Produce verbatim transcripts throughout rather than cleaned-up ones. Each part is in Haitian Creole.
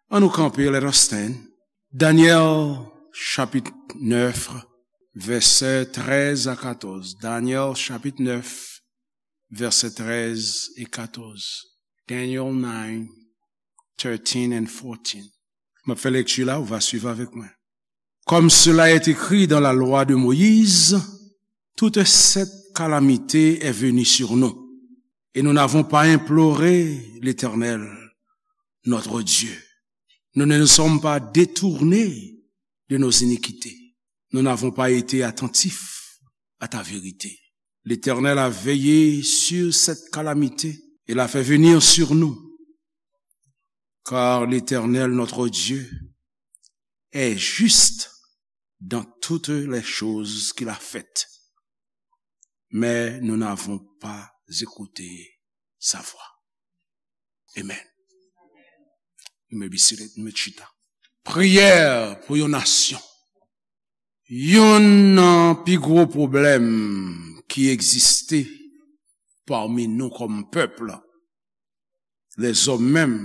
Ann nou kanpe, let us stand. Danyèl, chapit nèf, vèsè trèz a katòz. Danyèl, chapit nèf, vèsè trèz e katòz. Daniel nine, thirteen and fourteen. M ap fè lekti la, ou va swiv avèk mwen. Comme cela est écrit dans la loi de Moïse, toute cette calamité est venue sur nous, et nous n'avons pas imploré l'Éternel, notre Dieu. Nous ne nous sommes pas détournés de nos iniquités. Nous n'avons pas été attentifs à ta vérité. L'Éternel a veillé sur cette calamité et l'a fait venir sur nous, car l'Éternel, notre Dieu, est juste dans toutes les choses qu'il a faites, mais nous n'avons pas écouté sa voix. Amen. Mwen bisi ret, mwen chita. Priyè pou yon nasyon. Youn nan pi gwo pwoblèm ki egziste pami nou kòm pèp, lèzòm menm,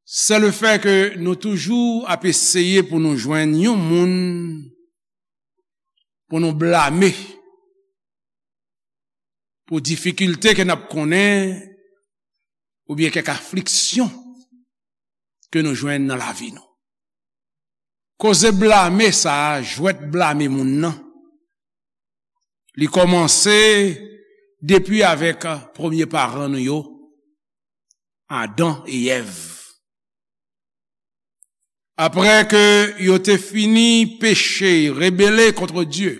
se le fè ke nou toujou ap eseye pou nou jwenn yon moun pou nou blame pou difikilte ke n ap konnen oubyen kèk afliksyon ke nou jwenn nan lavi nou. Koze blame sa a, jwèt blame moun nan, li kòmanse depi avèk premye paran nou yo, Adan e Èv. Apre ke yo te fini peche, rebele kont Dye,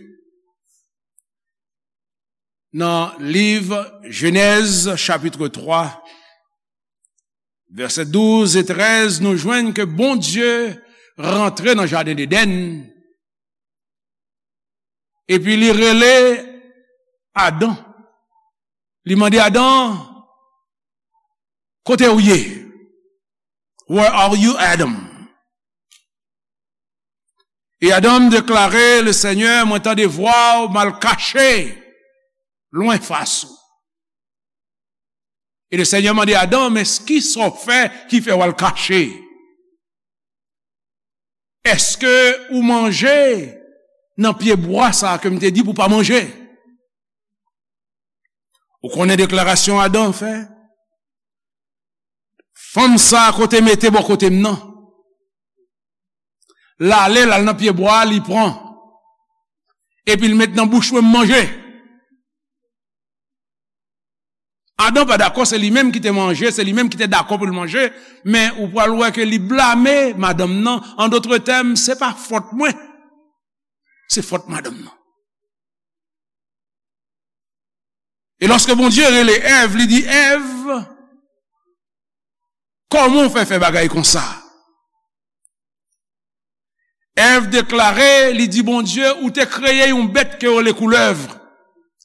nan liv Jenèz, chapit twa, vèsè douz e trèz, nou jwenn ke Bondye rantre nan jaden Edenn, epi li rele Adan. Li mande Adan, "Kote w ye? Where are you, Adam?" E Adan deklare, "Le Senyè, mwen tande vwa w, m al kache lwen fas ou." E le Senyè mande Adan, "Men kisa w fè ki fè w al kache? Èske ou manje nan pye bwa sa a ke m te di pou w pa manje?" Ou konnen deklarasyon Adan fè? "Fanm sa a kote mete bò kote m nan. L ale, l al nan pye bwa a, li pran. Epi l met nan bouch mwen, m manje." Adan pa dakò, se li menm ki te manje, se li menm ki te dakò pou l manje, men ou pral wè ke li blame madanm nan. An dòt tèm, se pa fòt mwen, se fòt madanm nan. E lòske Bondye rele Èv, li di, "Èv, kòman w fè fè bagay konsa?" Èv deklare, li di Bondye, "Ou te kreye yon bèt ke yo rele koulèv,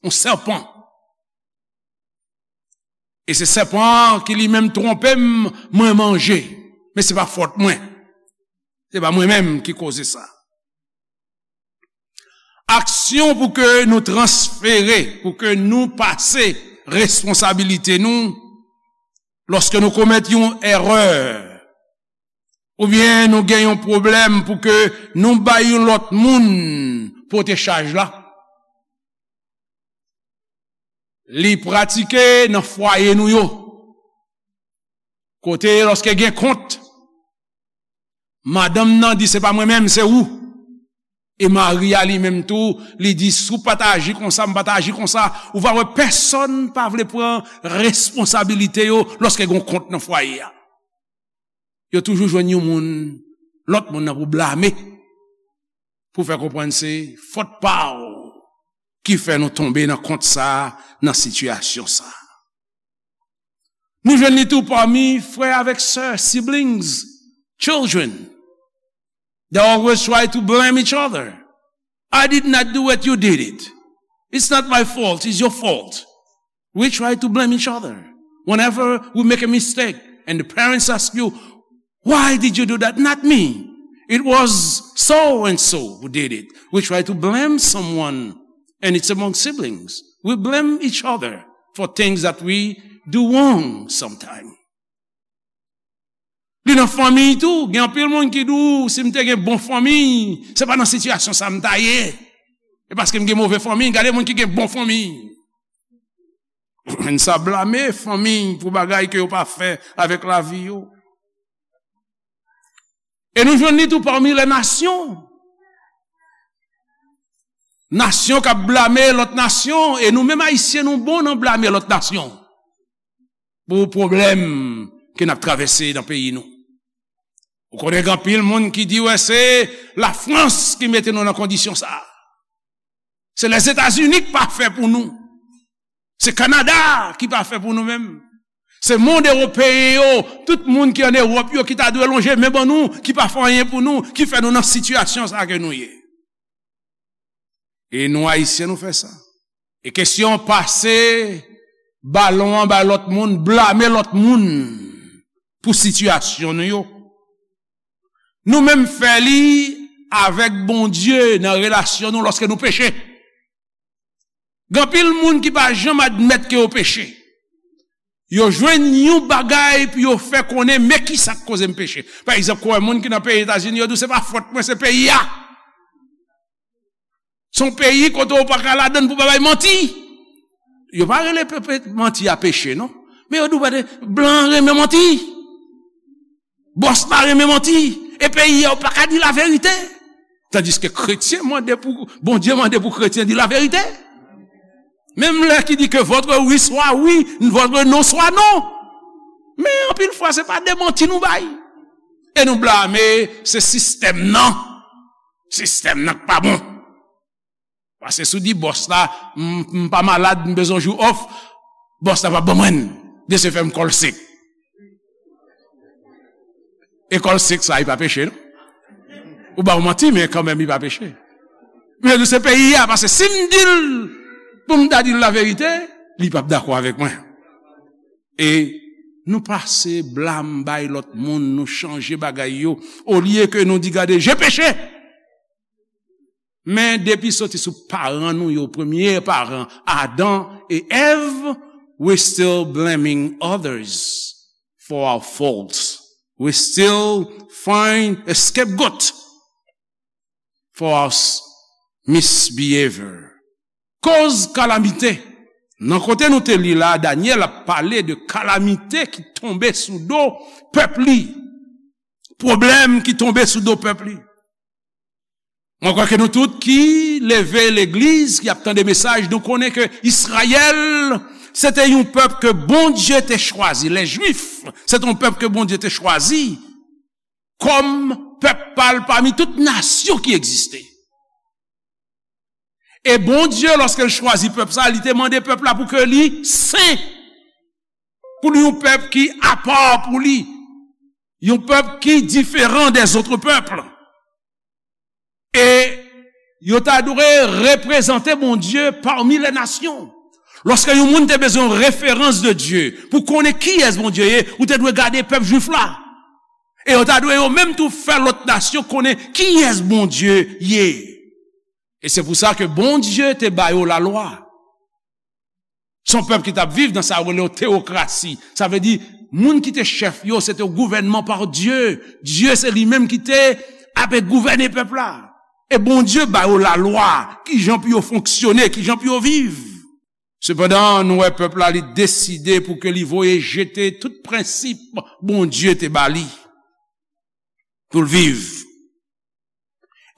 yon sèpan. E se sèpan an ki li menm twonpe m, mwen manje. Men se pa fòt mwen. Se pa mwen menm ki koze sa." Aksyon pou ke nou transfere, pou ke nou pase responsabilite nou, lòske nou komèt yon erè, oubyen nou gen yon pwoblèm, pou ke nou bay yon lòt moun pote chaj la, li pratike nan fwaye nou yo. Kote lòske gen kont, madanm nan di, "Se pa mwen menm, se ou." E mari a li menm tou, li di, "Si w pa t aji konsa, m pa t aji konsa." Ou va wè pèsonn pa vle pran responsabilite yo lòske gen kont nan fwaye a. Yo toujou jwenn yon moun, lòt moun nan pou blame, pou fè konprann se fòt pa w ki fè nou tonbe nan kont sa a, nan sitiyasyon sa a. Nou jwenn li tou pami frè avèk sè, siblings, children. They always try to blame each other. "I did not do it, you did it. It's not my fault, it's your fault." We try to blame each other. Whenever we make a mistake and the parents ask you, "Why did you do that?" "Not me. It was so and so who did it." We try to blame someone, and it's among siblings. We blame each other for things that we do wrong sometimes. nan fanmi tou. Gen anpil moun ki di w, "Si m te gen bon fanmi, se pa nan sitiyasyon sa m ta ye. E paske m gen move fanmi, gade moun ki gen bon fanmi." Moun sa blame fanmi pou bagay ke yo pa fè avèk lavi yo. E nou jwenn li tou pami lè nasyon. Nasyon k ap blame lòt nasyon, e nou menm Ayisyen nou bon nan blame lòt nasyon pou pwoblèm ke n ap travèse nan peyi nou. Ou konnen gen anpil moun ki di, "Wè, se Lafrans ki mete nou nan kondisyon sa a. Se Lèzetazini k pa fè pou nou. Se Kanada ki pa fè pou nou menm. Se mond ewopeyen yo, tout moun ki ann Ewòp yo ki ta dwe lonje men ban nou, ki pa fè anyen pou nou, ki fè nou nan sitiyasyon sa a ke nou ye." E nou Ayisyen nou fè sa. E kesyon pase balon an bay lòt moun, blame lòt moun pou sitiyasyon nou yo. Nou menm fè li avèk Bondye nan relasyon nou lòske nou peche. Gen anpil moun ki pa janm admèt ke yo peche. Yo jwenn yon bagay pou yo fè konnen, "Men kisa k koze m peche." Pa egzanp, ou wè moun ki nan peyi Etazini, yo di w, "Se pa fòt mwen, se peyi a." Se yon peyi kote w pa ka ladann pou pa bay manti. Yo pa rele pe-, pe-, manti a peche, non. Men yo di w, "Blan renmen manti. Bòs la renmen manti. E peyi a, w pa ka di laverite." Tandiske kretyen mande pou, Bondye mande pou kretyen di laverite. Menm lè ki di ke votre oui soit oui, votre non soit non. Men anpil fwa, se pa de manti nou bay. E nou blame se sistèm nan. Sistèm nan k pa bon. Paske si w di bòs la, "M, m pa malad, m bezwen jou off," bòs la p ap ban mwen l. De se fè m kò l sek. E kò l sek sa, li pa peche, non? Ou ba w manti, men kanmenm, li pa peche. Men se peyi a, paske si m di l, pou m ta di l laverite, li p ap dakò avèk mwen. E nou pase blam bay lòt moun, nou chanje bagay yo. Olye ke nou di, "Gade, je peche." Men depi soti sou paran nou yo, premye paran, Adan e Èv, we still blaming others for our faults. We still find a scapegoat for our s-, misbehavior. Koz kalamite. Nan kote nou te li la, Danyèl ap pale de kalamite ki tonbe sou do pèp li. Pwoblèm ki tonbe sou do pèp li. Mwen kwè ke nou tout ki leve legliz, ki ap tande mesaj, nou konnen ke Izrayèl, se te yon pèp ke Bondye te chwazi. Lè Jwif, se te yon pèp ke Bondye te chwazi kòm pèp pa l pami tout nasyon ki egziste. E Bondye, lòske l chwazi pèp sa, li te mande pèp la pou ke li sen, pou li yon pèp ki apa pou li, yon pèp ki diferan dèzòt pèp. E yo ta dwe reprezante Bondye pami lè nasyon. Lòske yon moun te bezwen yon referans de Dye, pou konnen kiyès Bondye ye, ou te dwe gade pèp Jwif la. E yo ta dwe yo menm tou fè lòt nasyon konnen kiyès Bondye ye. E se pou sa ke Bondye te ba yo lalwa. Se yon pèp ki t ap viv nan sa yo rele yon teyokrasi. Sa vle di, moun ki te chèf yo, se te yon gouvènman pa Dye. Dye se li menm ki te ap gouvène pèp la. E Bondye ba yo lalwa, kijan pou yo fonksyone, kijan pou yo viv. Sepandan, nou wè pèp la, li deside pou ke li voye jete tout prensip Bondye te ba li pou l viv.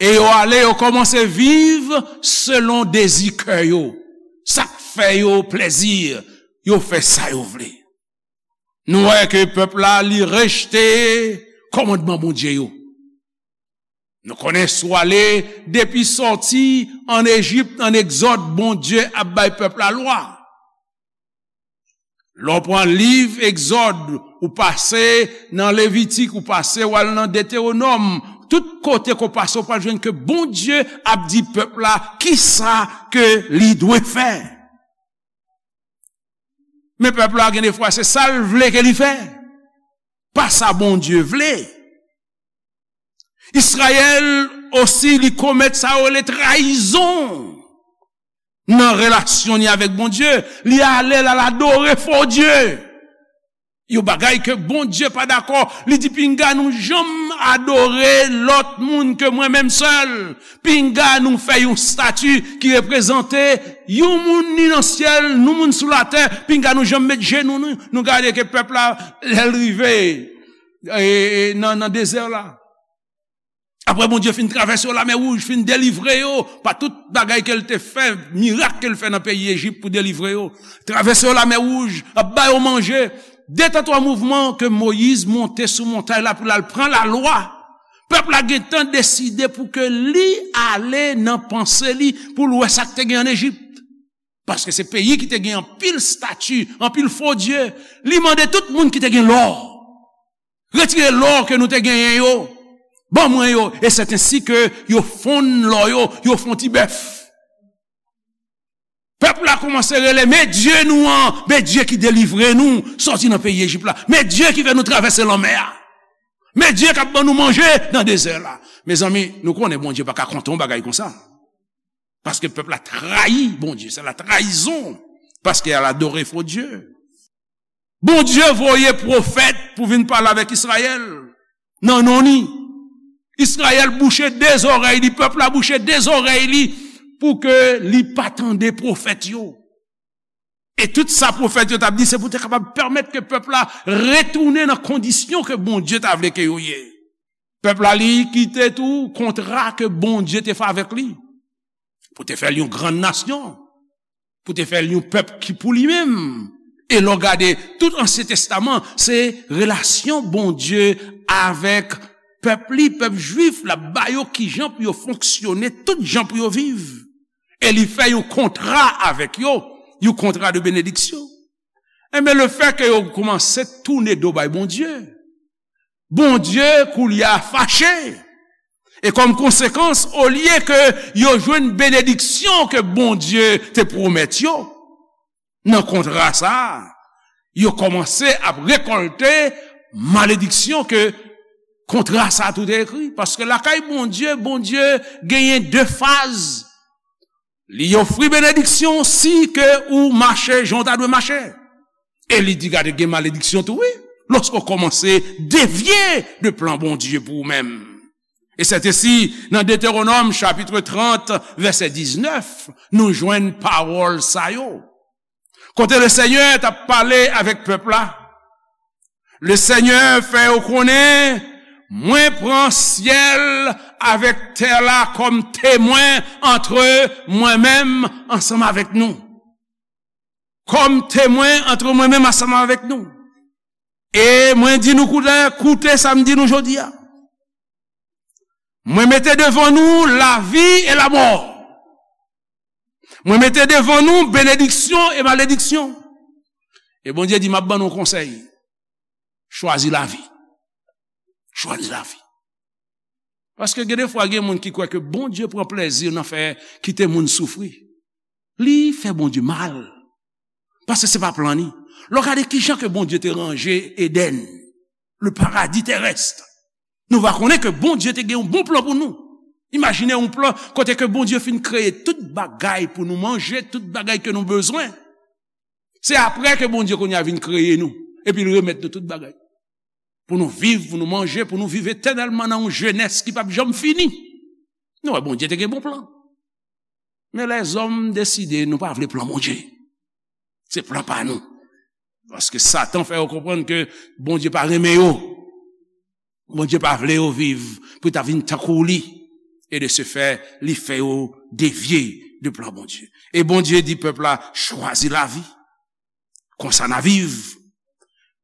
E yo ale, yo kòmanse viv selon dezi kè yo. Sa k fè yo plezi, yo fè sa yo vle. Nou wè ke pèp la, li rejte kòmandman Bondye yo. Nou konnen si w ale depi sòti ann Ejip, ann Egzòd, Bondye ap bay pèp la lwa. Lè w pran liv Egzòd, ou pase nan Levitik, ou pase w al nan Detewonòm, tout kote ke w pase, w pral jwenn ke Bondye ap di pèp la kisa ke li dwe fè. Men pèp la, gen de fwa, se sa l vle ke li fè, pa sa Bondye vle. Izrayèl osi, li komèt sa yo rele trayizon nan relasyon li avèk Bondye. Li ale, l al adore fo dye. Yon bagay ke Bondye pa dakò. Li di, "Pinga nou janm adore lòt moun ke mwen menm sèl. Pinga nou fè yon estati ki reprezante yon moun ni nan syèl, yon moun sou latè. Pinga nou janm met jenou nou, nou gade ke pèp la, lè l rive, e, e, nan, nan dezè la." Apre Bondye fin travèse yo Lamè Wouj, fin delivre yo pa tout bagay ke l te fè, mirak ke l fè nan peyi Ejip pou delivre yo, travèse yo Lamè Wouj, ap ba yo manje, de tan twa mouvman ke Moyiz monte sou montay la pou l al pran lalwa. Pèp la gentan deside pou ke li ale nan panse li pou l wè sa k te gen ann Ejip. Paske se peyi ki te gen anpil estati, anpil fo dye. Li mande tout moun ki te gen lò, "Retire lò ke nou te genyen yo, ban mwen yo." E se ensi ke yo fonn lò yo, yo fè yon ti bèf. Pèp la kòmanse rele, "Men Dye nou an, men Dye ki delivre nou sòti nan peyi Ejip la. Men Dye ki fè nou travèse lanmè a. Men Dye k ap ban nou manje nan dezè la." Mezanmi, nou konnen Bondye pa ka kontan yon bagay konsa. Paske pèp la trayi Bondye, se la trayizon. Paske al adore fo dye. Bondye voye pwofèt pou vin pale avèk Izrayèl nan non li. Izrayèl bouche de zòrèy li, pèp la bouche de zòrèy li, pou ke li pa tande pwofèt yo. E tout sa pwofèt yo t ap di, se pou te kapab pèmèt ke pèp la retounen nan kondisyon ke Bondye ta vle ke yo ye. Pèp la, li kite tou kontra ke Bondye te fè avèk li, pou te fè l yon grann nasyon, pou te fè l yon pèp ki pou li menm. E lè w gade tout Ansyen Testaman, se relasyon Bondye avèk pèp li, pèp jwif, l ap ba yo kijan pou yo fonksyone, tout jan pou yo viv. E li fè yon kontra avèk yo, yon kontra de benediksyon. Enben, lefètke yo kòmanse tounen do bay Bondye, Bondye koulye a fache. E kòm konsekans, olye ke yo jwenn benediksyon ke Bondye te pwomèt yo nan kontra sa a, yo kòmanse ap rekòlte malediksyon ke kontra sa a tou te ekri. Paske lakay Bondye, Bondye genyen de faz. Li ofri benediksyon si ke ou mache jan w ta dwe mache. E li di, gade, gen malediksyon tou, wi, lòske w kòmanse devye de plan Bondye pou ou menm. E sètesi, nan Detewonòm chapit trant, vèsè diznèf, nou jwenn pawòl sa yo. Kote Lesenyè t ap pale avèk pèp la, Lesenyè fè yo konnen, "Mwen pran syèl avèk tè la kòm temwen antre mwen menm ansanm avèk nou." Kòm temwen antre mwen menm ansanm avèk nou. E mwen di nou koute, koute sa m di nou jodi a. Mwen mete devan nou lavi e lamò. Mwen mete devan nou benediksyon e malediksyon. E Bondye di, "M ap ban nou konsèy. Chwazi lavi. Chwazi lavi." Paske gen de fwa, gen moun ki kwè ke Bondye pran plezi nan fè kite moun soufri. Li fè Bondye mal. Paske se pa plan li. Lè w gade kijan ke Bondye te ranje Edenn, le paradis terrestre, nou va konnen ke Bondye te gen yon bon plan pou nou. Imajine yon plan kote ke Bondye fin kreye tout bagay pou nou manje, tout bagay ke nou bezwen. Se apre ke Bondye kounye a vin kreye nou, epi l remèt nou tout bagay. Pou nou viv, pou nou manje, pou nou viv etènèlman nan yon jenès ki p ap janm fini. Nou wè, Bondye te gen bon plan. Men lèzòm deside nou pa vle plan Bondye. Se plan pa nou. Paske Satan fè yo konprann ke Bondye pa renmen yo. Bondye pa vle yo viv pou ta vin tankou li. E de se fè, li fè yo devye de plan Bondye. E Bondye di pèp la, chwazi lavi. Konsa n a viv.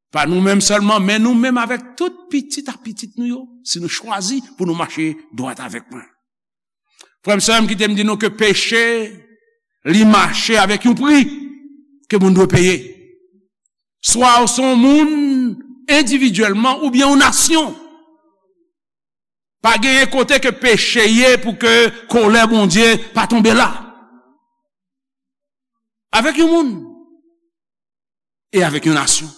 Pa nou menm sèlman, men nou menm avèk tout pitit a pitit nou yo, si nou chwazi pou nou mache dwat avèk mwen. Frè m, sè m, kite m di nou ke peche, li mache avèk yon pri ke moun dwe peye. Swa ou se yon moun endividyèlman oubyen yon nasyon. Pa genyen kote ke peche ye pou ke kolè Bondye pa tonbe la. Avèk yon moun e avèk yon nasyon.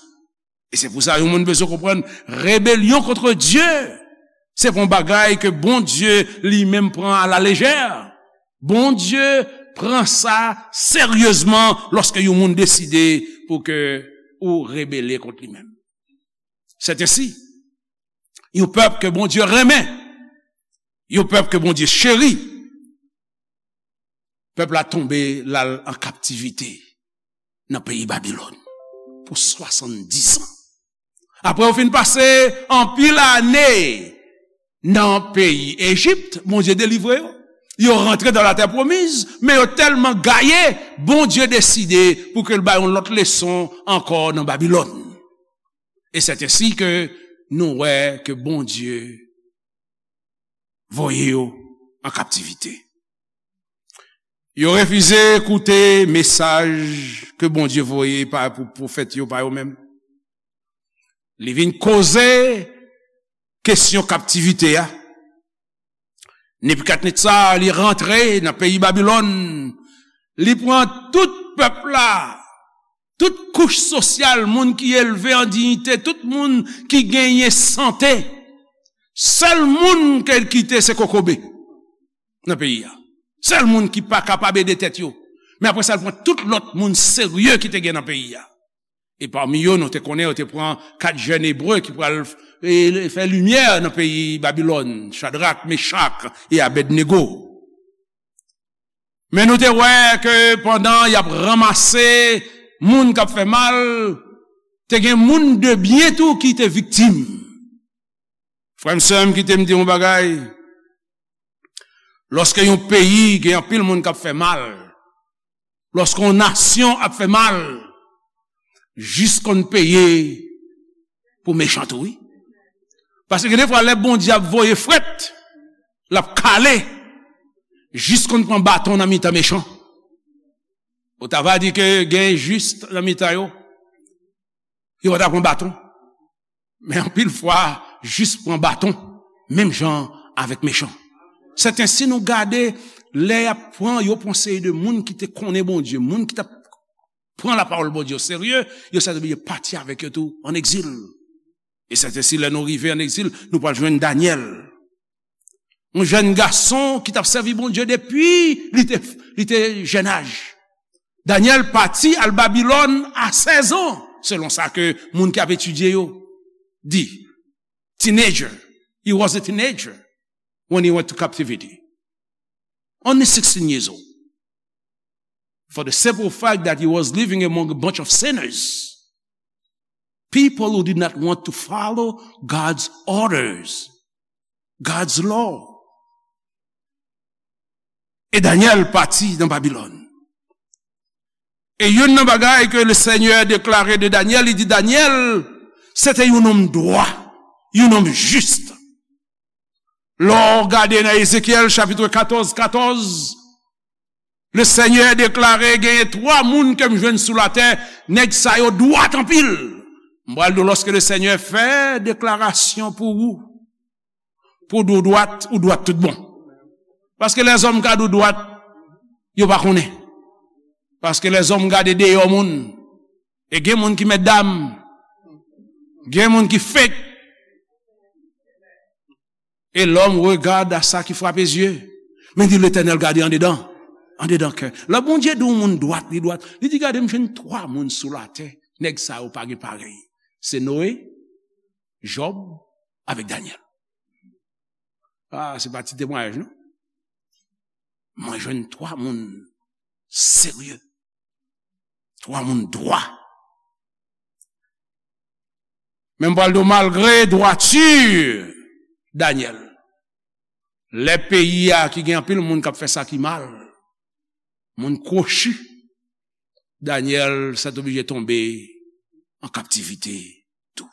E se pou sa yon moun bezwen konprann, rebelyon kont Dye, se pa yon bagay ke Bondye li menm pran alalejè. Bondye pran sa seryezman lòske yon moun deside pou ke ou rebele kont li menm. Sèt ensi, yon pèp ke Bondye renmen, yon pèp ke Bondye cheri, pèp la tonbe, l al an kaptivite nan peyi Babilòn pou swasanndis an. Apre yo fin pase anpil ane nan peyi Ejip, Bondye delivre yo. Yo rantre dan latè pwomiz, men yo tèlman gaye, Bondye deside pou ke l ba yo yon lòt leson ankò nan Babilòn. E sèt ensi ke nou wè ke Bondye voye yo an kaptivite. Yo refize koute mesaj ke Bondye voye pa, pou pwofèt yo pa yo menm. Li vin koze kesyon kaptivite a. Nebikadnetza, li rantre nan peyi Babilòn. Li pran tout pèp la, tout kouch sosyal, moun ki elve an diyite, tout moun ki genyen sante. Sèl moun ke l kite se kokobe nan peyi a. Sèl moun ki pa kapab ede tèt yo. Men apre sa, l pran tout lòt moun serye ki te gen nan peyi a. E pami yo, nou te konnen, yo te pran kat jèn ebre ki pral, e, fè limyè nan peyi Babilòn, Chadrak, Mechak e Abèdnego. Men nou te wè ke pandan y ap ranmase moun k ap fè mal, te gen moun de byen tou ki te viktim. Frè m, sè m, kite m di yon bagay. Lòske yon peyi gen anpil moun k ap fè mal, lòske yon nasyon ap fè mal, jis konn peye pou mechan tou, wi. Paske gen defwa, lè Bondye ap voye frèt, l ap kale, jis konn pran baton nan mitan mechan. Ou ta va di ke gen jis nan mitan yo, yo pa ta pran baton. Men anpil fwa, jis pran baton, menm jan avèk mechan. Sèten, si nou gade, lè y ap pran, yo pran seri de moun ki te konnen Bondye, moun ki t ap pran lapawòl Bondye o serye, yo sèten oblije pati avèk yo tou an egzil. E sèten, si lè nou rive an egzil, nou pral jwenn Danyèl. Yon jèn gason ki t ap sèvi Bondye depi li te, li te jèn aj. Danyèl pati al Babilòn a sèz an, selon sa ke moun ki ap etidye yo di. Teenager. He was a teenager when he went to captivity. Only sixteen years old. For the simple fact that he was living among a bunch of sinners. People who did not want to follow God's orders, God's law. E Danyèl pati nan Babilòn. E youn nan bagay ke le Senyè deklare de Danyèl, li di, Danyèl, se te yon nonm dwa, yon nonm jis. Lè w gade nan Ezekyèl chapit katòz, katòz, le Senyè deklare genyen twa moun ke m jwenn sou latè, nèg sa yo dwat anpil. M pral di w, lòske le Senyè fè deklarasyon pou ou, pou w di w dwat, ou dwat tout bon. Paske lèzòm ka di w dwat, yo pa konnen. Paske lèzòm gade deyò moun. E gen moun ki mètdam, gen moun ki fake. Et l'homme regarde à ça qui frappe aux yeux. Men di Letènèl gade andedan, andedan kè. Lè Bondye di yon moun dwat, li dwat, li di, gade, m jwenn twa moun sou latè, nèg sa yo pa gen parèy. Se Noe, Jòb, avèk Danyèl. Ah, se pa ti temwayaj, non? Mwen jwenn twa moun serye. Twa moun dwa. Men m pral di w, malgre dwati Danyèl, lè peyi a ki gen anpil moun k ap fè sa ki mal, moun kwochi, Danyèl sètoblije tonbe an kaptivite tou.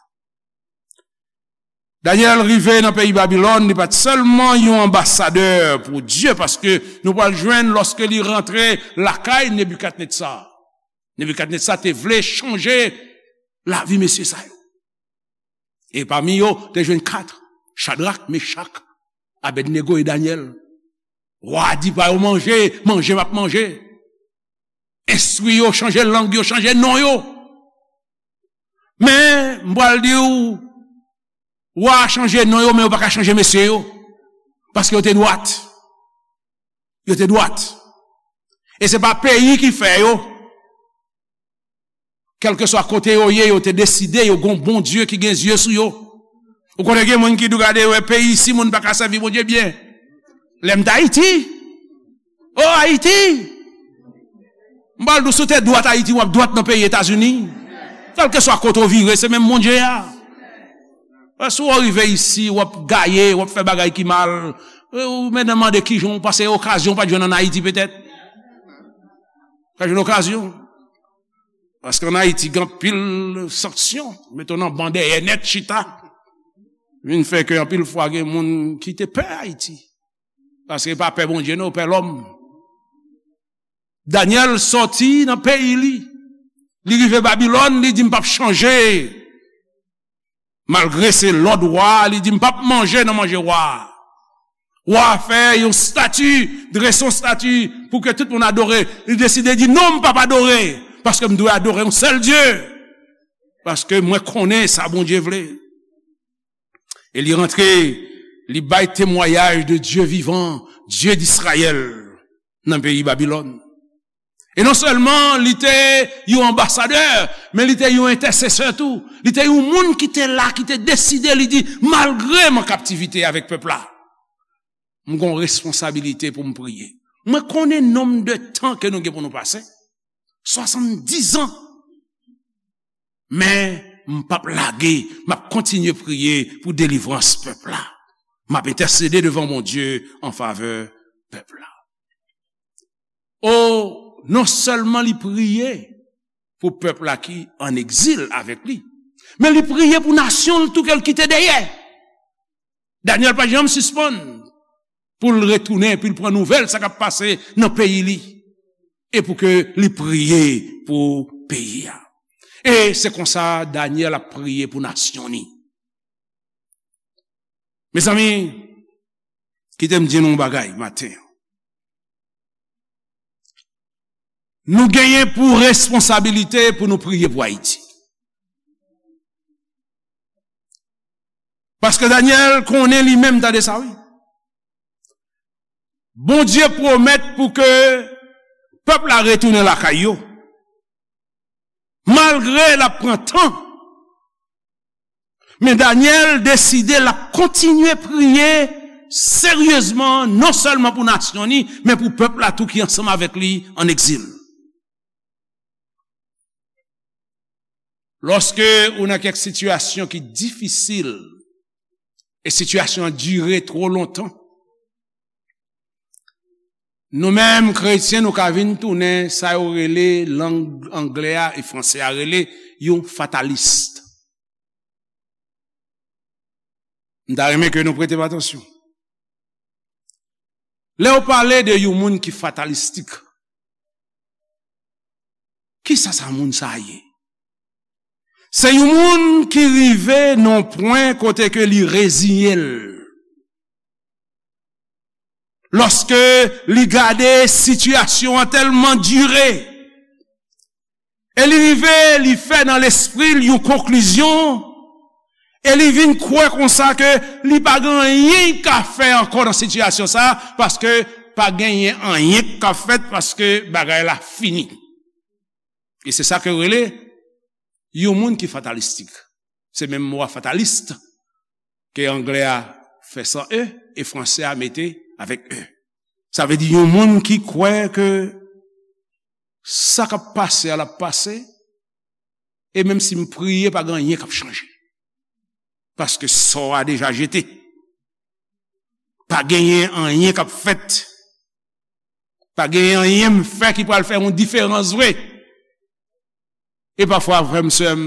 Danyèl rive nan peyi Babilòn, li pa t sèlman yon anbasadè pou Dye, paske nou pral jwenn lòske li rantre lakay Nebikadnetza. Nebikadnetza te vle chanje lavi mesye sa yo. E pami yo, te jwenn kat, Chadrak, Mechak, Abèdnego e Danyèl. Wa a di pa yo manje, manje m ap manje. Enstwi yo, chanje lang yo, chanje non yo. Men, m pral di w, wa a chanje non yo, men yo pa ka chanje mesye yo. Paske yo te dwat. Yo te dwat. E se pa peyi ki fè yo. kèlkeswa kote yo ye, yo te deside, yo gon Bondye ki gen zye sou yo. Ou konnen gen moun ki di w gade, wè, peyi isi, moun pa ka sèvi Bondye byen. Lè m t Ayiti. O Ayiti! M pral di w, si w te dwat Ayiti, w ap dwat nan peyi Etazini. Kèlkeswa kote w vire, se menm Bondye a. Wè, si w rive isi, w ap gaye, w ap fè bagay ki mal. Ou menm mande kijan w pase okazyon w pa t jwenn ann Ayiti petèt. Pa jwenn okazyon. Paske ann Ayiti, gen anpil sanksyon. Mete w nan ban dèyè nèt chita. Vin fè ke anpil fwa gen moun ki te pè Ayiti. Paske pa pè Bondye, non, pè lòm. Danyèl sòti nan peyi li. Li rive Babilòn, li di, "M p ap chanje." Malgre se lòd wa a, li di, "M p ap manje nan manje wa a." Wa a fè yon estati, drese yon estati pou ke tout moun adore. Li deside di, "Non, m p ap adore, paske m dwe adore yon sèl Dye, paske mwen konnen sa Bondye vle." E li rantre, li bay temwayaj de Dye vivan, Dye d'Izrayèl, nan peyi Babilòn. E non sèlman li te yon anbasadè, men li te yon entèsesè tou. Li te yon moun ki te la, ki te deside, li di, "Malgre m an kaptivite avèk pèp la, m gon responsabilite pou m priye." Mwen konnen nonb de tan ke nou gen pou nou pase, swasanndiz an. Men, m p ap lage, m ap kontinye priye pou delivrans pèp la. M ap entèsede devan Bondye an favè pèp la. O, non sèlman li priye pou pèp la ki ann egzil avèk li, men li priye pou nasyon l tou ke l kite dèyè. Danyèl pa janm sispann pou l retounen, pou l pran nouvèl sa k ap pase nan peyi li, e pou ke li priye pou peyi a. E se konsa Danyèl ap priye pou nasyon ni. Mezanmi, kite m di nou yon bagay maten an. Nou genyen pou responsabilite pou nou priye pou Ayiti. Paske Danyèl konnen li menm, tande sa wi. Bondye pwomèt pou ke pèp la retounen lakay yo. Malgre l ap pran tan, men Danyèl deside l ap kontinye priye seryezman, non sèlman pou nasyon ni, men pou pèp la tou ki ansanm avèk li ann egzil. Lòske ou nan kèk sitiyasyon ki difisil, e sitiyasyon an dire twò lontan, nou menm kretyen, nou ka vin tounen sa yo rele lang anglè a e franse a rele yon fatalis. M ta renmen ke nou prete m atansyon. Lè yo pale de yon moun ki fatalistik, kisa sa moun sa ye? Se yon moun ki rive nan pwen kote ke li reziye l. Lòske li gade sitiyasyon an tèlman dire, e li rive, li fè nan lespri l yon konklizyon, e li vin kwè konsa ke li pa gen anyen l ka fè ankò nan sitiyasyon sa, paske pa genyen anyen k ap fèt, paske bagay la fini. E se sa ke yo rele yon moun ki fatalistik. Se menm mo a fatalist ke anglè a fè san e, e franse a mete avèk e. Sa vle di yon moun ki kwè ke sa k ap pase a l ap pase, e menm si m priye, pa gen anyen k ap chanje. Paske sò a deja jete. Pa genyen anyen k ap fèt. Pa genyen anyen m fè ki pral fè yon diferans vre. E pafwa, frè m, sè m,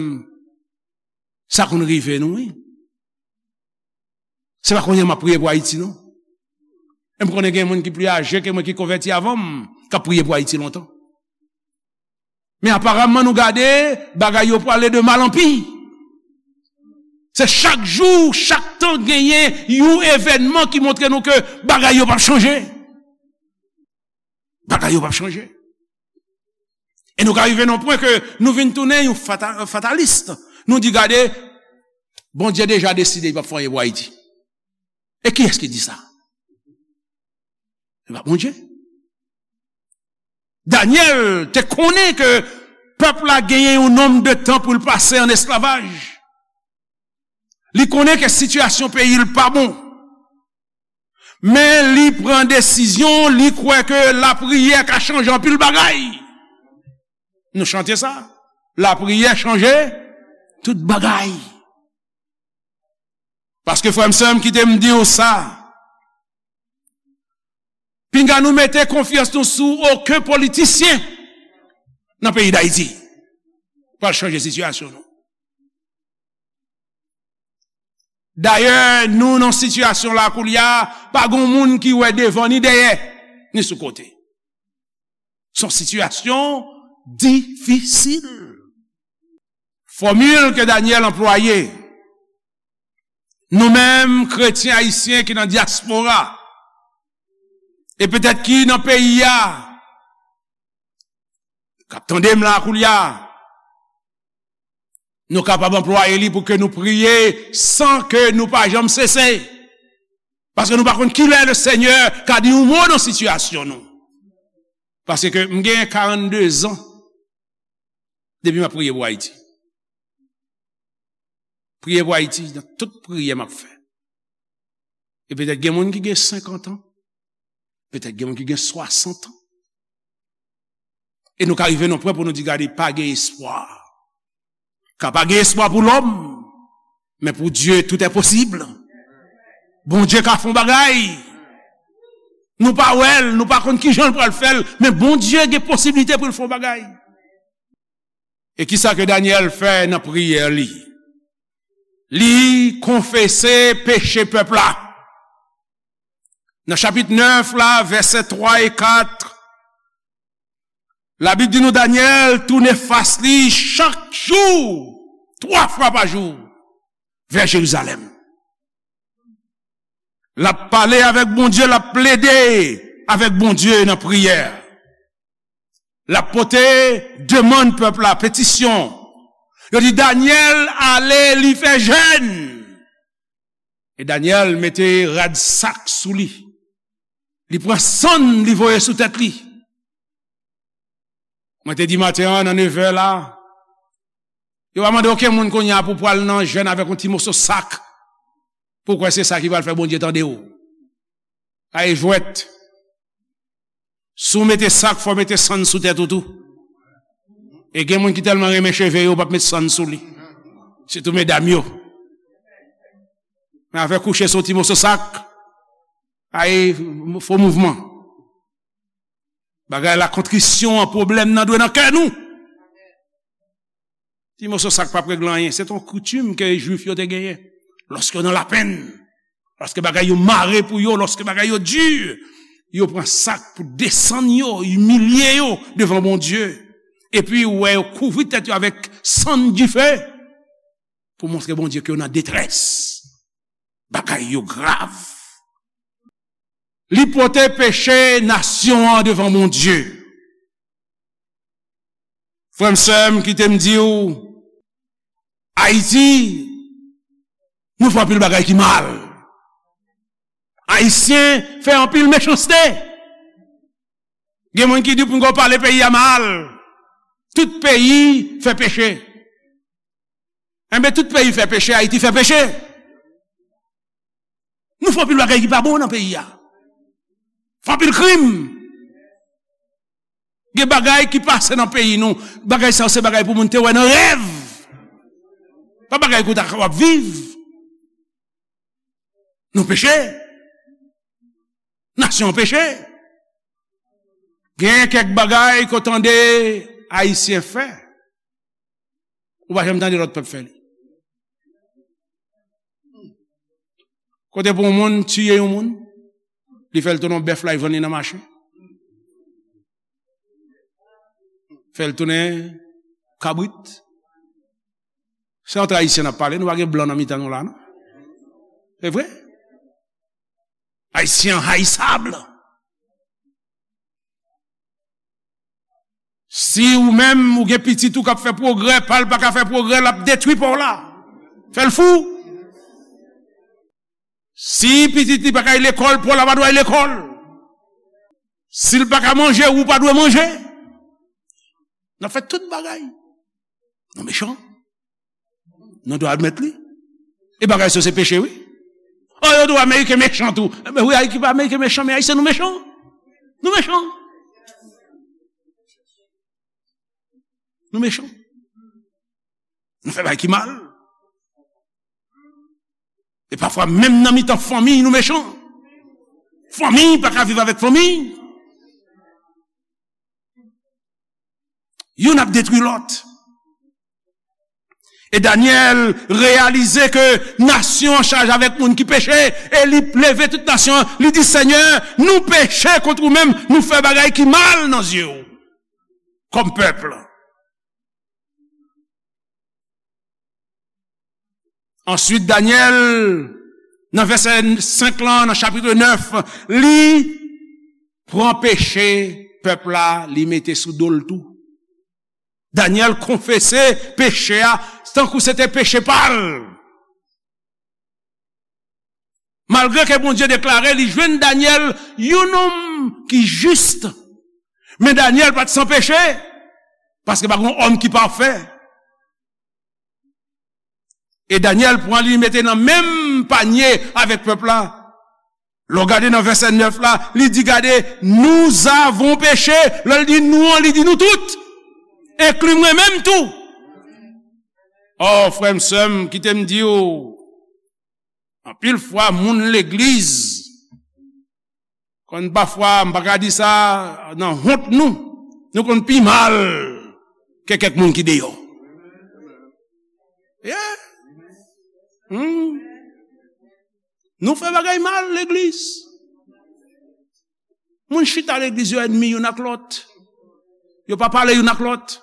sa konn rive nou, wi. Se pa kounye a m ap priye pou Ayiti, non. E m konnen gen moun ki pli aje ke mwen ki konvèti avan m, k ap priye pou Ayiti lontan. Men aparamman, nou gade, bagay yo prale de mal an pi. Se chak jou, chak tan genyen yon evènman ki montre nou ke bagay yo p ap chanje. Bagay yo p ap chanje. E nou ka rive nan pwen ke nou vin tounen yon fata-, fatalis. Nou di, "Gade, Bondye deja deside li p ap fè anyen pou Ayiti." E kiyès ki di sa? Se pa Bondye. Danyèl te konnen ke Pèp la genyen yon nonb de tan pou l pase an esklavaj. Li konnen ke sitiyasyon peyi l pa bon. Men li pran desizyon, li kwè ke lapriyè ka chanje anpil bagay. Nou chante sa. Lapriyè chanje tout bagay. Paske frè m, sè m, kite m di w sa. Pinga nou mete konfyans nou sou okenn politisyen nan peyi Dayiti pral chanje sitiyasyon nou. Dayè, nou nan sitiyasyon la koulye a, pa gon moun ki wè devan ni dèyè, ni sou kote. Se yon sitiyasyon difisil. Fòmil ke Danyèl anplwaye, nou menm kretyen ayisyen ki nan dyaspora, e petèt ki nan peyi a, k ap tande m la koulye a, nou kapab anplwaye li pou ke nou priye san ke nou pa janm sese. Paske nou pa konn kilè Lesenyè ka di yon mo nan sitiyasyon nou. Paske m gen karannde zan depi m ap priye pou Ayiti. Priye pou Ayiti nan tout priyè m ap fè. E petèt gen moun ki gen senkant an, petèt gen moun ki gen swasant an. E nou ka rive nan pwen pou nou di, gade, pa gen espwa. Ka pa gen espwa pou lòm, men pou Dye, tout est possible. Bondye ka fè yon bagay. Nou pa wè l, nou pa konn ki jan l pral fè l, men Bondye gen posiblite pou l fè yon bagay. E kisa ke Danyèl fè nan priyè li? Li konfese peche pèp la. Nan chapit nèf la, vèsè twa e kat, Labib di nou Danyèl tounen fas li chak jou, twa fwa pa jou, vè Jerizalèm. L ap pale avèk Bondye, l ap plede avèk Bondye nan priyè. L ap pote demann pèp la, petisyon. Yo di Danyèl ale, li fè jèn. E Danyèl mete rad sak sou li. Li pran sann, li voye sou tèt li. Mwen te di maten an, nan nevè la, yo pa mande okenn moun kounye a pou pral nan jèn avèk yon ti moso sak. Pou kwè se sa ki pral fè Bondye tande w. Ay jwèt. Si w mete sak, fò w mete sann sou tèt ou tou. E gen moun ki tèlman renmen cheve yo, yo p ap met sann sou li. Sitou medam yo. Men afè kouche sou ti moso sak, ay, fo mouvman. Bagay la, kontrisyon an, pwoblèm nan dwe nan kè nou. Ti moso sak p ap regle anyen. Se t yon koutim ke Jwif yo te genyen. Lòske yo nan lapenn, lòske bagay yo mare pou yo, lòske bagay yo di, yo pran sak pou desann yo, imilye yo devan Bondye. Epi ou wè yo kouvri tèt yo avèk sann dife pou montre Bondye ke yo nan detrès. Bagay yo grav. Li pote peche nasyon an devan Bondye. Frè m, sè m, kite m di w, Ayiti, nou fè anpil bagay ki mal. Ayisyen fè anpil mechanste. Gen moun ki di pou n pale peyi a mal. Tout peyi fè peche. Enben, tout peyi fè peche, Ayiti fè peche. Nou fè anpil bagay ki pa bon nan peyi a. Fè anpil krim. Gen bagay ki pase nan peyi nou. Bagay sa yo se bagay pou moun te wè nan rèv. Pa bagay ke w ta kapab viv. Nou peche. Nasyon an peche. Gen kèk bagay ke w tande Ayisyen fè. Ou pa janm tande lòt pèp fè li. Kote pou yon moun tiye yon moun, li fè l tounen yon bèf la, li vann li nan mache. Fè l tounen kabrit. Se antre Ayisyen n ap pale, nou pa gen blan nan mitan nou la, non? Se vre? Ayisyen an hayisab. Si ou menm, ou gen pitit ou k ap fè pwogrè, pa l pa ka fè pwogrè, l ap detwi pa w la. Fè l fou. Si pitit li pa ka al lekòl, pa w la pa dwe al lekòl. Si l pa ka manje, ou pa dwe manje. N ap fè tout bagay. Nou mechan. Nou dwe admèt li. E bagay sa se peche, wi. Oh, yo di w Ameriken mechan tou. Men wi, Ayiti pa Ameriken mechan, men Ayisyen nou mechan. Nou mechan. Nou mechan. Nou fè bagay ki mal. E pafwa, menm nan mitan fanmi, nou mechan. Fanmi pa ka viv avèk fanmi. Youn ap detwi lòt. E Danyèl reyalize ke nasyon an chaje avèk moun ki peche, e li leve tout nasyon an, li di, Senyè, nou peche kont ou menm, nou fè bagay ki mal nan zye w, kòm pèp. Answit, Danyèl, nan vèsè senk lan, nan chapit nèf, li pran peche pèp la, li mete sou do l tou. Danyèl konfese peche a, tankou se te peche pa l. Malgre ke Bondye deklare li jwenn Danyèl yon nonm ki jis, men Danyèl pa t san peche, paske pa gen yon òm ki pafè. E Danyèl pran li, li mete nan menm panye avèk pèp la. Lè w gade nan vèsè nèf la, li di, gade, nous avons péché. Lè l di nou an, li di nou tout. Enkli mwen menm tou. Oh, frè m, sè m, kite m di w, anpil fwa, moun legliz, konn pafwa, m pa ka di sa nan wont nou, nou konn pi mal ke kèk moun ki deyò. Yeah. Hmm. Nou fè bagay mal, legliz. Moun chita legliz yo ènmi youn ak lòt. Yo pa pale youn ak lòt.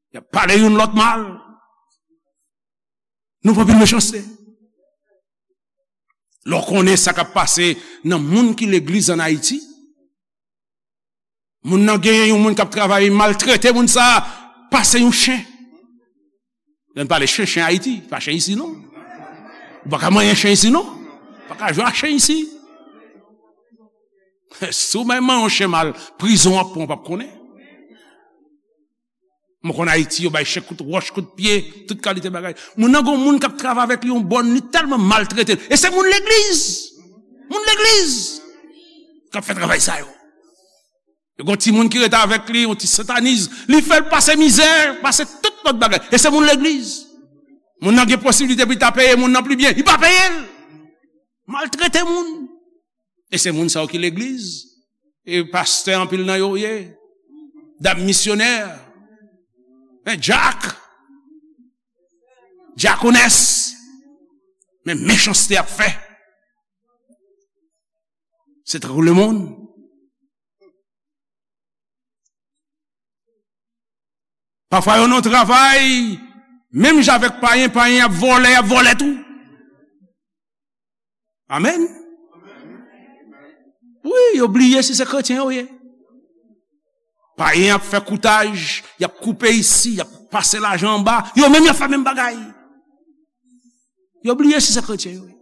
Y ap pale youn lòt mal. Nou pran anpil mechanste. Lè w konnen sa k ap pase nan moun ki legliz ann Ayiti, moun nan genyen yon moun k ap travay, maltrete moun sa a, pase yon chen. Lè n pale chen, chen Ayiti, pa chen isi non. Ou pa ka manyen chen isi non. Ou pa ka jwe ak chen isi. Si w bay manyen yon chen mal, prizon w ap pran, w p ap konnen. Mwen konn Ayiti, yo bay chen kout wòch, kout pye, tout kalite bagay. Moun nan gon moun k ap travay avèk li yon bòn, li tèlman maltrete l. E se moun legliz. Moun legliz k ap fè travay sa yo. Yo gon timoun ki rete avèk li, yon ti sentaniz, li fè l pase mizè, pase tout lòt bagay. E se moun legliz. Moun nan gen posiblite pou li ta peye moun nan pi byen, li pa peye l. Maltrete moun. E se moun sa yo ki legliz. E pastè anpil nan yo ye. Dam misyonè. Men dyak. Dyakonès. Men mechanste y ap fè. Se tankou lemonn. Pafwa yo nan travay, menm jan avèk payen, payen ap vòlè, y ap vòlè tou. Amèn. Wi, yo bliye si se kretyen yo ye. Payen ap fè koutaj, y ap koupe isi, y ap pase lajan anba, yo menm y ap fè menm bagay. Yo bliye si se kretyen yo ye.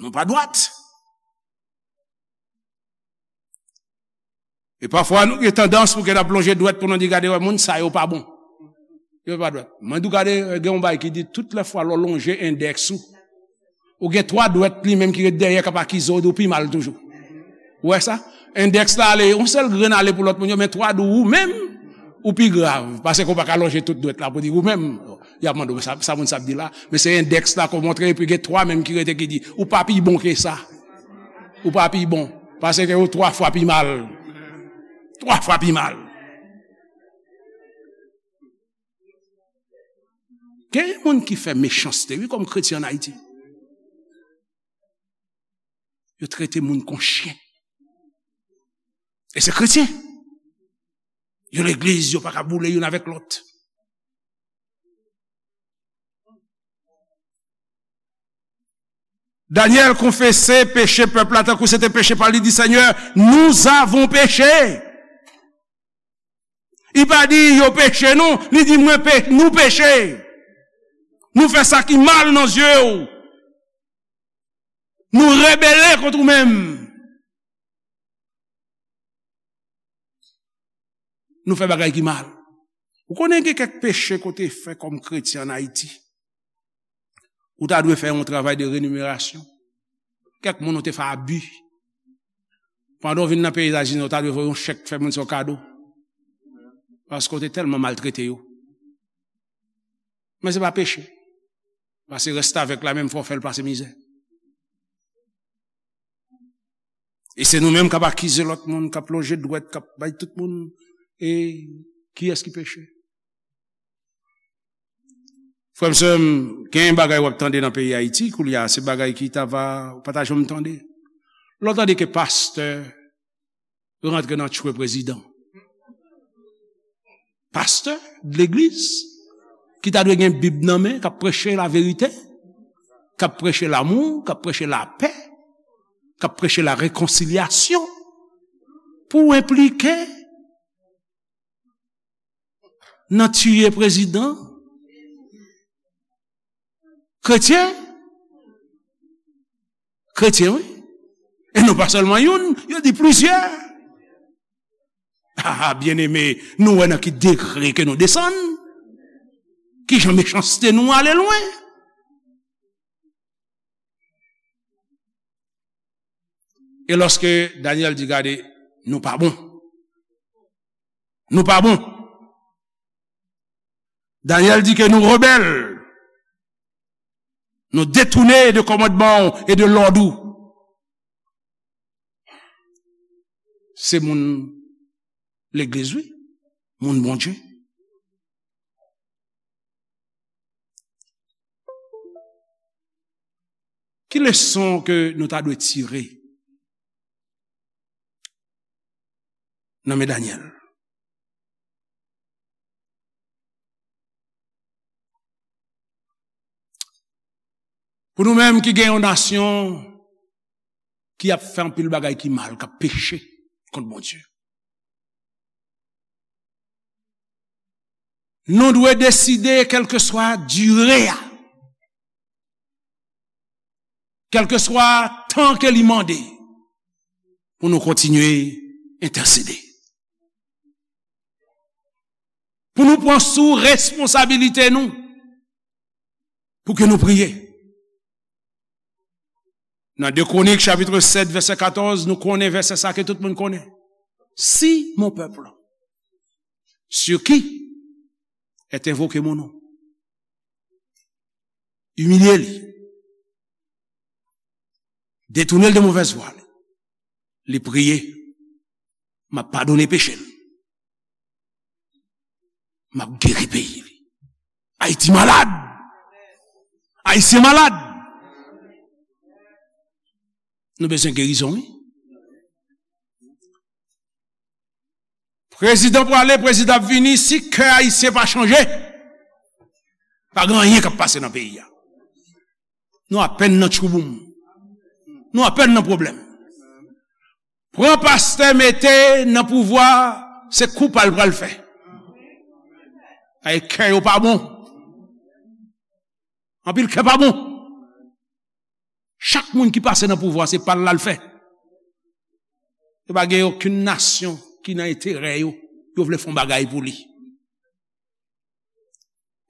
Nou pa dwat. E pafwa nou gen tandans pou gen ap lonje dwèt pou nou di, gade wè, moun sa yo pa bon. Yo pa dwèt. Mwen di w, gade, gen yon bay ki di tout lè fwa lè w lonje endèks ou, ou gen twa dwèt li menm ki ret dèyè k ap akize w, di w pi mal toujou. Ou wè sa? Endèks la ale, yon sèl grenn ale pou lòt moun yo, men twa di w ou menm, ou pi grav. Paske w pa ka lonje tout dwèt la pou di ou menm. Y ap mande w, sa, sa moun sa ap di la? Men se endèks la k ap montre, epi gen twa menm ki rete ki di, ou pa pi bon ke sa. Ou pa pi bon. Paske ou twa fwa pi mal. Twa fwa pi mal. Gen moun ki fè mechanste, wi, kòm kretyen ann Ayiti. Yo trete moun kon chen. E se kretyen. Yo legliz, yo pa ka boule youn avèk lòt. Danyèl konfese peche pèp la tankou se te peche pa l. Li di, Senyè, nous avons péché. Li pa di yo peche non, li di mwen pe, nou peche. Nou fè sa ki mal nan zye w. Nou rebele kont ou menm. Nou fè bagay ki mal. Ou konnen gen kèk peche ke w te fè kòm kretyen ann Ayiti. Ou ta dwe fè yon travay de renimerasyon. Kèk moun ou te fè abi. Pandan w vin nan peyi Etazini, ou ta dwe voye yon chèk fè moun sa yon kado. Paske w te tèlman maltrete yo. Men se pa peche. Pase restavèk la menm fò w fè l pase mizè. E se nou menm k ap akize lòt moun, k ap lonje dwèt, k ap bay tout moun. E kiyès ki peche? Frè m, sè m, gen bagay w ap tande nan peyi Ayiti koulye a, se bagay ki ta va, ou pa ta janm tande. Lè w tande ke pastè rantre nan tchwe prezidan. Pastè legliz ki ta dwe gen Bib nan men, k ap preche laverite, k ap preche lamou, k ap preche lapè, k ap preche larekonsilyasyon, pou w enplike nan tiye prezidan? Kretyen? Kretyen, wi. E non pa sèlman youn, yo di plizyè. Ah, byeneme, nou wè nan ki degre ke nou desann? Kijan mechanste nou ale lwen? E lòske Danyèl di, "Gade, nou pa bon. Nou pa bon." Danyèl di ke nou rebèl. Nou detounen de kòmandman w e de lòd ou. Se moun legliz, wi. Moun Bondye. Ki leson ke nou ta dwe tire nan men Danyèl? Pou nou menm ki gen yon nasyon ki ap fè anpil bagay ki mal, k ap peche kont Bondye, nou dwe deside, kèlkeswa dire a, kèlkeswa tan ke li mande, pou nou kontinye entèsede. Pou nou pran sou responsabilite nou, pou ke nou priye. Nan de Kwonik, chapit sèt, vèsè katòz, nou konnen vèsè sa ke tout moun konnen. Si mon peuple, sur qui est invoqué mon nom, imilye li, detounen l de movèz vwa li, li priye, m ap padone peche l, m ap geri peyi li. Ayiti malad. Ayisyen malad. Nou bezwen gerizon, wi. Prezidan prale, prezidan ap vini, si kè ayisyen pa chanje, pa gen anyen k ap pase nan peyi a. Nou apèn nan tchouboum. Nou apèn nan pwoblèm. Pran pastè mete nan pouvwa, se kou pa l pral fè. Ay, kè yo pa bon. Anpil kè pa bon. Chak moun ki pase nan pouvwa, se pa l l al fè. Yo pa gen okenn nasyon ki nan enterè yo, yo vle fè yon bagay pou li.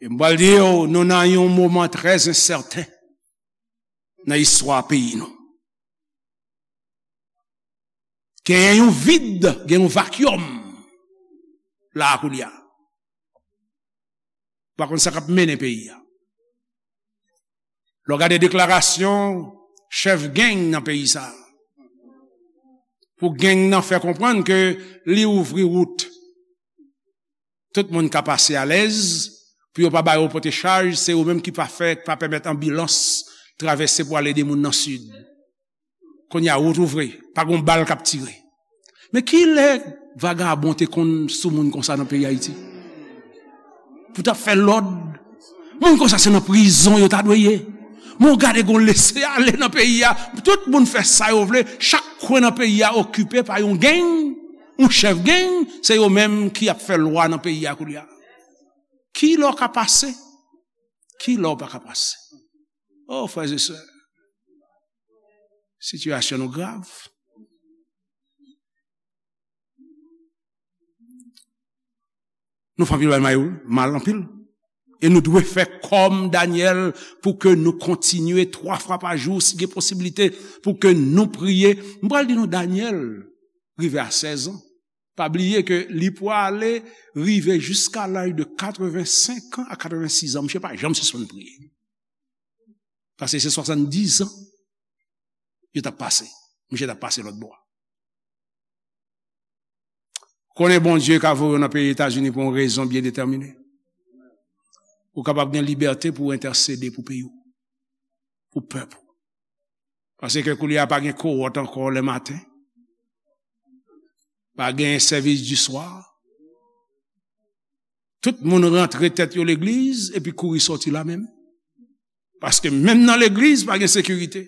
E m pral di yo, nou nan yon moman trè ensèten nan istwa peyi nou. Genyen yon vid, gen yon vakyòm la a koulye a. Pa konn sa k ap mennen peyi a. Lè w gade deklarasyon chèf gang nan peyi sa a, pou gang nan fè konprann ke li ouvri wout, tout moun ka pase alèz, pou yo pa ba yo pote chaj, se yo menm ki pa fè, pa pèmèt anbilans travèse pou al ede moun nan sid. Kounye a, wout ouvri, pa gon bal k ap tire. Men kilè vagabon te konn sou moun konsa nan peyi Ayiti? Pou t ap fè lòd, moun konsa se nan prizon yo ta dwe ye. Men w gade gon lese ale nan peyi a, tout moun fè sa yo vle, chak kwen nan peyi a okipe pa yon gang, yon chèf gang, se yo menm ki ap fè lwa nan peyi a koulye a. Kilè w ka pase? Kilè w pa ka pase? O, frè e sè, sitiyasyon nou grav. Nou fè anpil bagay mal, mal anpil. E nou dwe fè kòm Danyèl pou ke nou kontinye twa fwa pa jou, si gen posiblite, pou ke nou priye. M pral di nou, Danyèl rive a sèz an. Pa bliye ke li pwale rive jiska laj de katrevensenk an a katrevensis an. Misye pa janm sispann priye. Paske se swasanndiz an yo t ap pase. Misye t ap pase lòt bò. Konnen Bondye ka voye w nan peyi Etazini pou yon rezon byen detèmine. Ou kapab gen libète pou w entèsede pou peyi w, pou pèp ou. Paske koulye a pa gen kowòt ankò lèmaten. Pa gen sèvis di swa. Tout moun rantre tèt yo legliz epi kouri sòti la menm. Paske menm nan legliz, pa gen sekirite.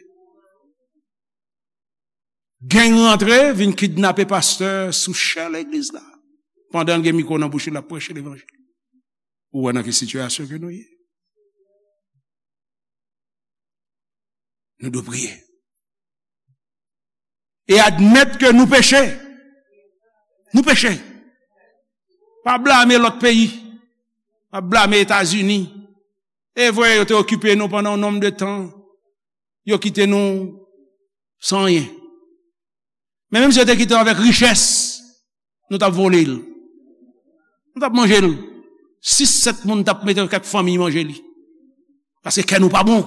Gang rantre, vin kidnape pastè sou chè legliz la. Pandan l gen mikwo nan bouch li, l ap preche levanjil. Ou wè nan ki sitiyasyon ke nou ye. Nou dwe priye. E admèt ke nou peche. Nou peche. Pa blame lòt peyi. Pa blame Etazini. E vre, yo te okipe nou pandan yon nonm de tan. Yo kite nou san anyen. Men menm si yo te kite w avèk richès, nou t ap vole l. Nou t ap manje l. Sis, sèt moun t ap mete kèk fanmi manje li. Paske kè nou pa bon.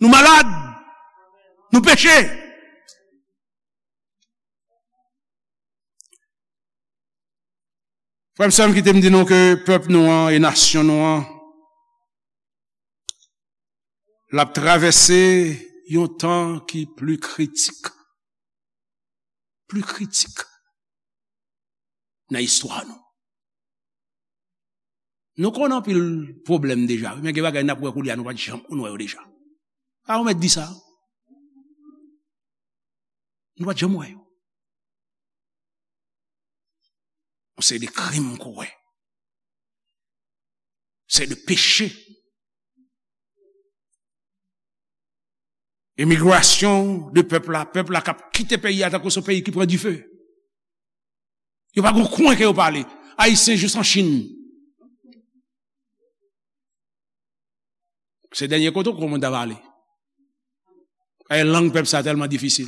Nou malad. Nou peche. Frè m, sè m, kite m di nou ke pèp nou an e nasyon nou an, l ap travèse yon tan ki pli kritik. Pli kritik nan istwa nou. Nou konn anpil pwoblèm deja, wi, men gen bagay n ap wè koulye a nou pa t janm konn wè yo deja. A, ou mèt di sa. Nou pa t janm wè yo. Yon seri de krim k ou wè. Seri de peche. Emigrasyon de pèp la, pèp la k ap kite peyi a tankou se yon peyi ki pran dife. Yo pa gon kwen ke yo pa ale. Ayisyen jis an Chin. Se dènye kote ou kwè moun ta va ale. E lang pèp sa tèlman difisil.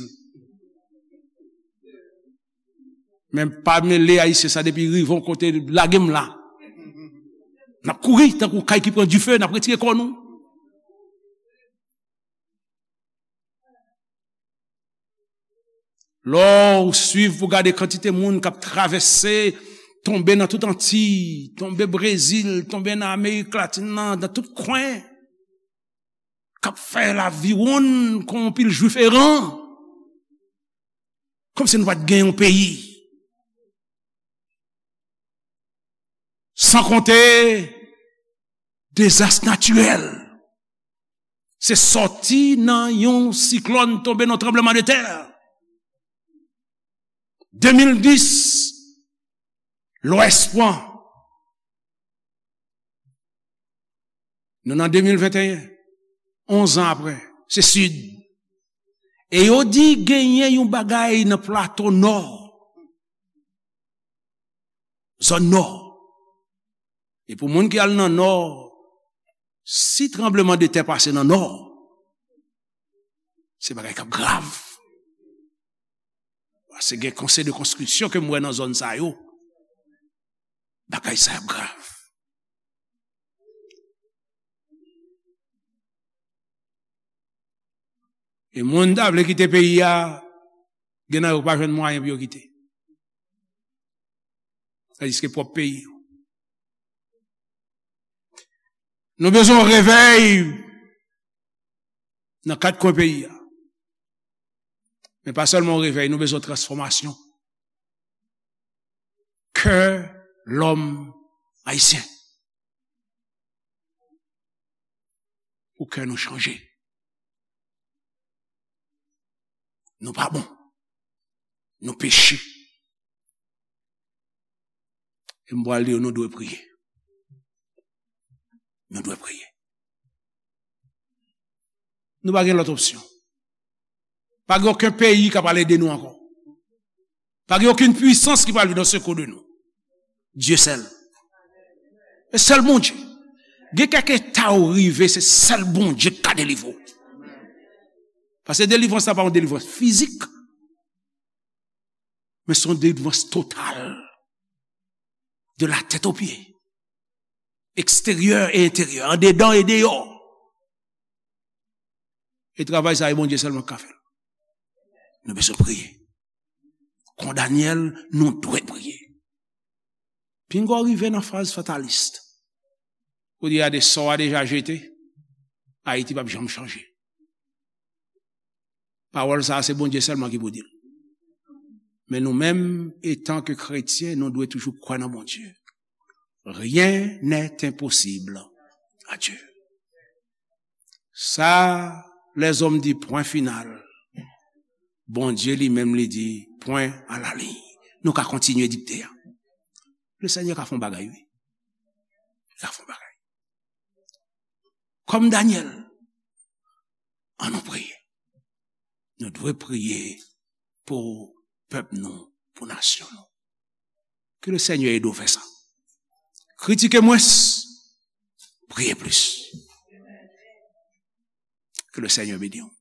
Men pa mele Ayisyen sa depi rive yon kote, lage m la. N ap kouri tankou kay ki pran dife, n ap retire kò nou. Lè w swiv pou gade kantite moun k ap travèse, tonbe nan tout Antiy, tonbe Brezil, tonbe nan Amerik Latin nan, nan tout kwen, k ap fè laviwonn kon yon pil Jwif eran. Kòmsi nou pa t gen yon peyi. San konte dezas natirèl. Se sòti nan yon siklòn tonbe nan tranbleman de tè. De mil dis, Lwès pran. Nou nan de mil venteyen, onz an apre, se Sid. E yo di genyen yon bagay nan plato Nò. Zòn Nò. E pou moun ki al nan Nò, si tranbleman de tè pase nan Nò, se bagay k ap grav. Paske gen konsèy de konstriksyon ke m wè nan zòn sa yo, bagay sa ap grav. E moun ta vle kite peyi a, gen nan yo pa jwenn mwayen pou yo kite. Tandiske pwòp peyi yo. Nou bezwen yon revèy nan kat kwen peyi a. Men pa sèlman yon revèy, nou bezwen transfòmasyon. Kè lòm ayisyen. Pou kè nou chanje. Nou pa bon. Nou peche. E m pral di yo, nou dwe priye. Nou dwe priye. Nou pa gen lòt opsyon. Pa gen okenn peyi k ap al ede nou ankò. Pa gen okenn pwisans ki pral vin an sekou de nou. Dye sèl. E sèl Bondye. Gen kèk eta ou rive, se sèl Bondye ki ka delivre w. Paske delivrans la pa yon delivrans fizik, men se yon delivrans total. De la tèt o pye. Eksteryè e enteryè, andedan e deyò. E travay sa, e Bondye sèlman ki ka fè l. Nou bezwen priye. Kon Danyèl, nou dwe priye. Pinga w rive nan faz fatalis. Ou di a de sò a deja jete, Ayiti p ap janm chanje. Pawòl sa a, se Bondye sèlman ki pou di l. Men nou menm, etan ke kretyen, nou dwe toujou kwè nan Bondye. Rien n'est impossible à Dieu. Sa, lèzòm di pwen final. Bondye li menm li di pwen a la liy. Nou ka kontinye dikte a. Le Senyè ka fè yon bagay, wi. Li ka fè yon bagay. Kòm Danyèl, ann nou priye. Nou dwe priye pou pèp nou, pou nasyon nou. Ke le Senyè ede w fè sa. Kritike mwens, priye plis. Ke le Senyè beni w.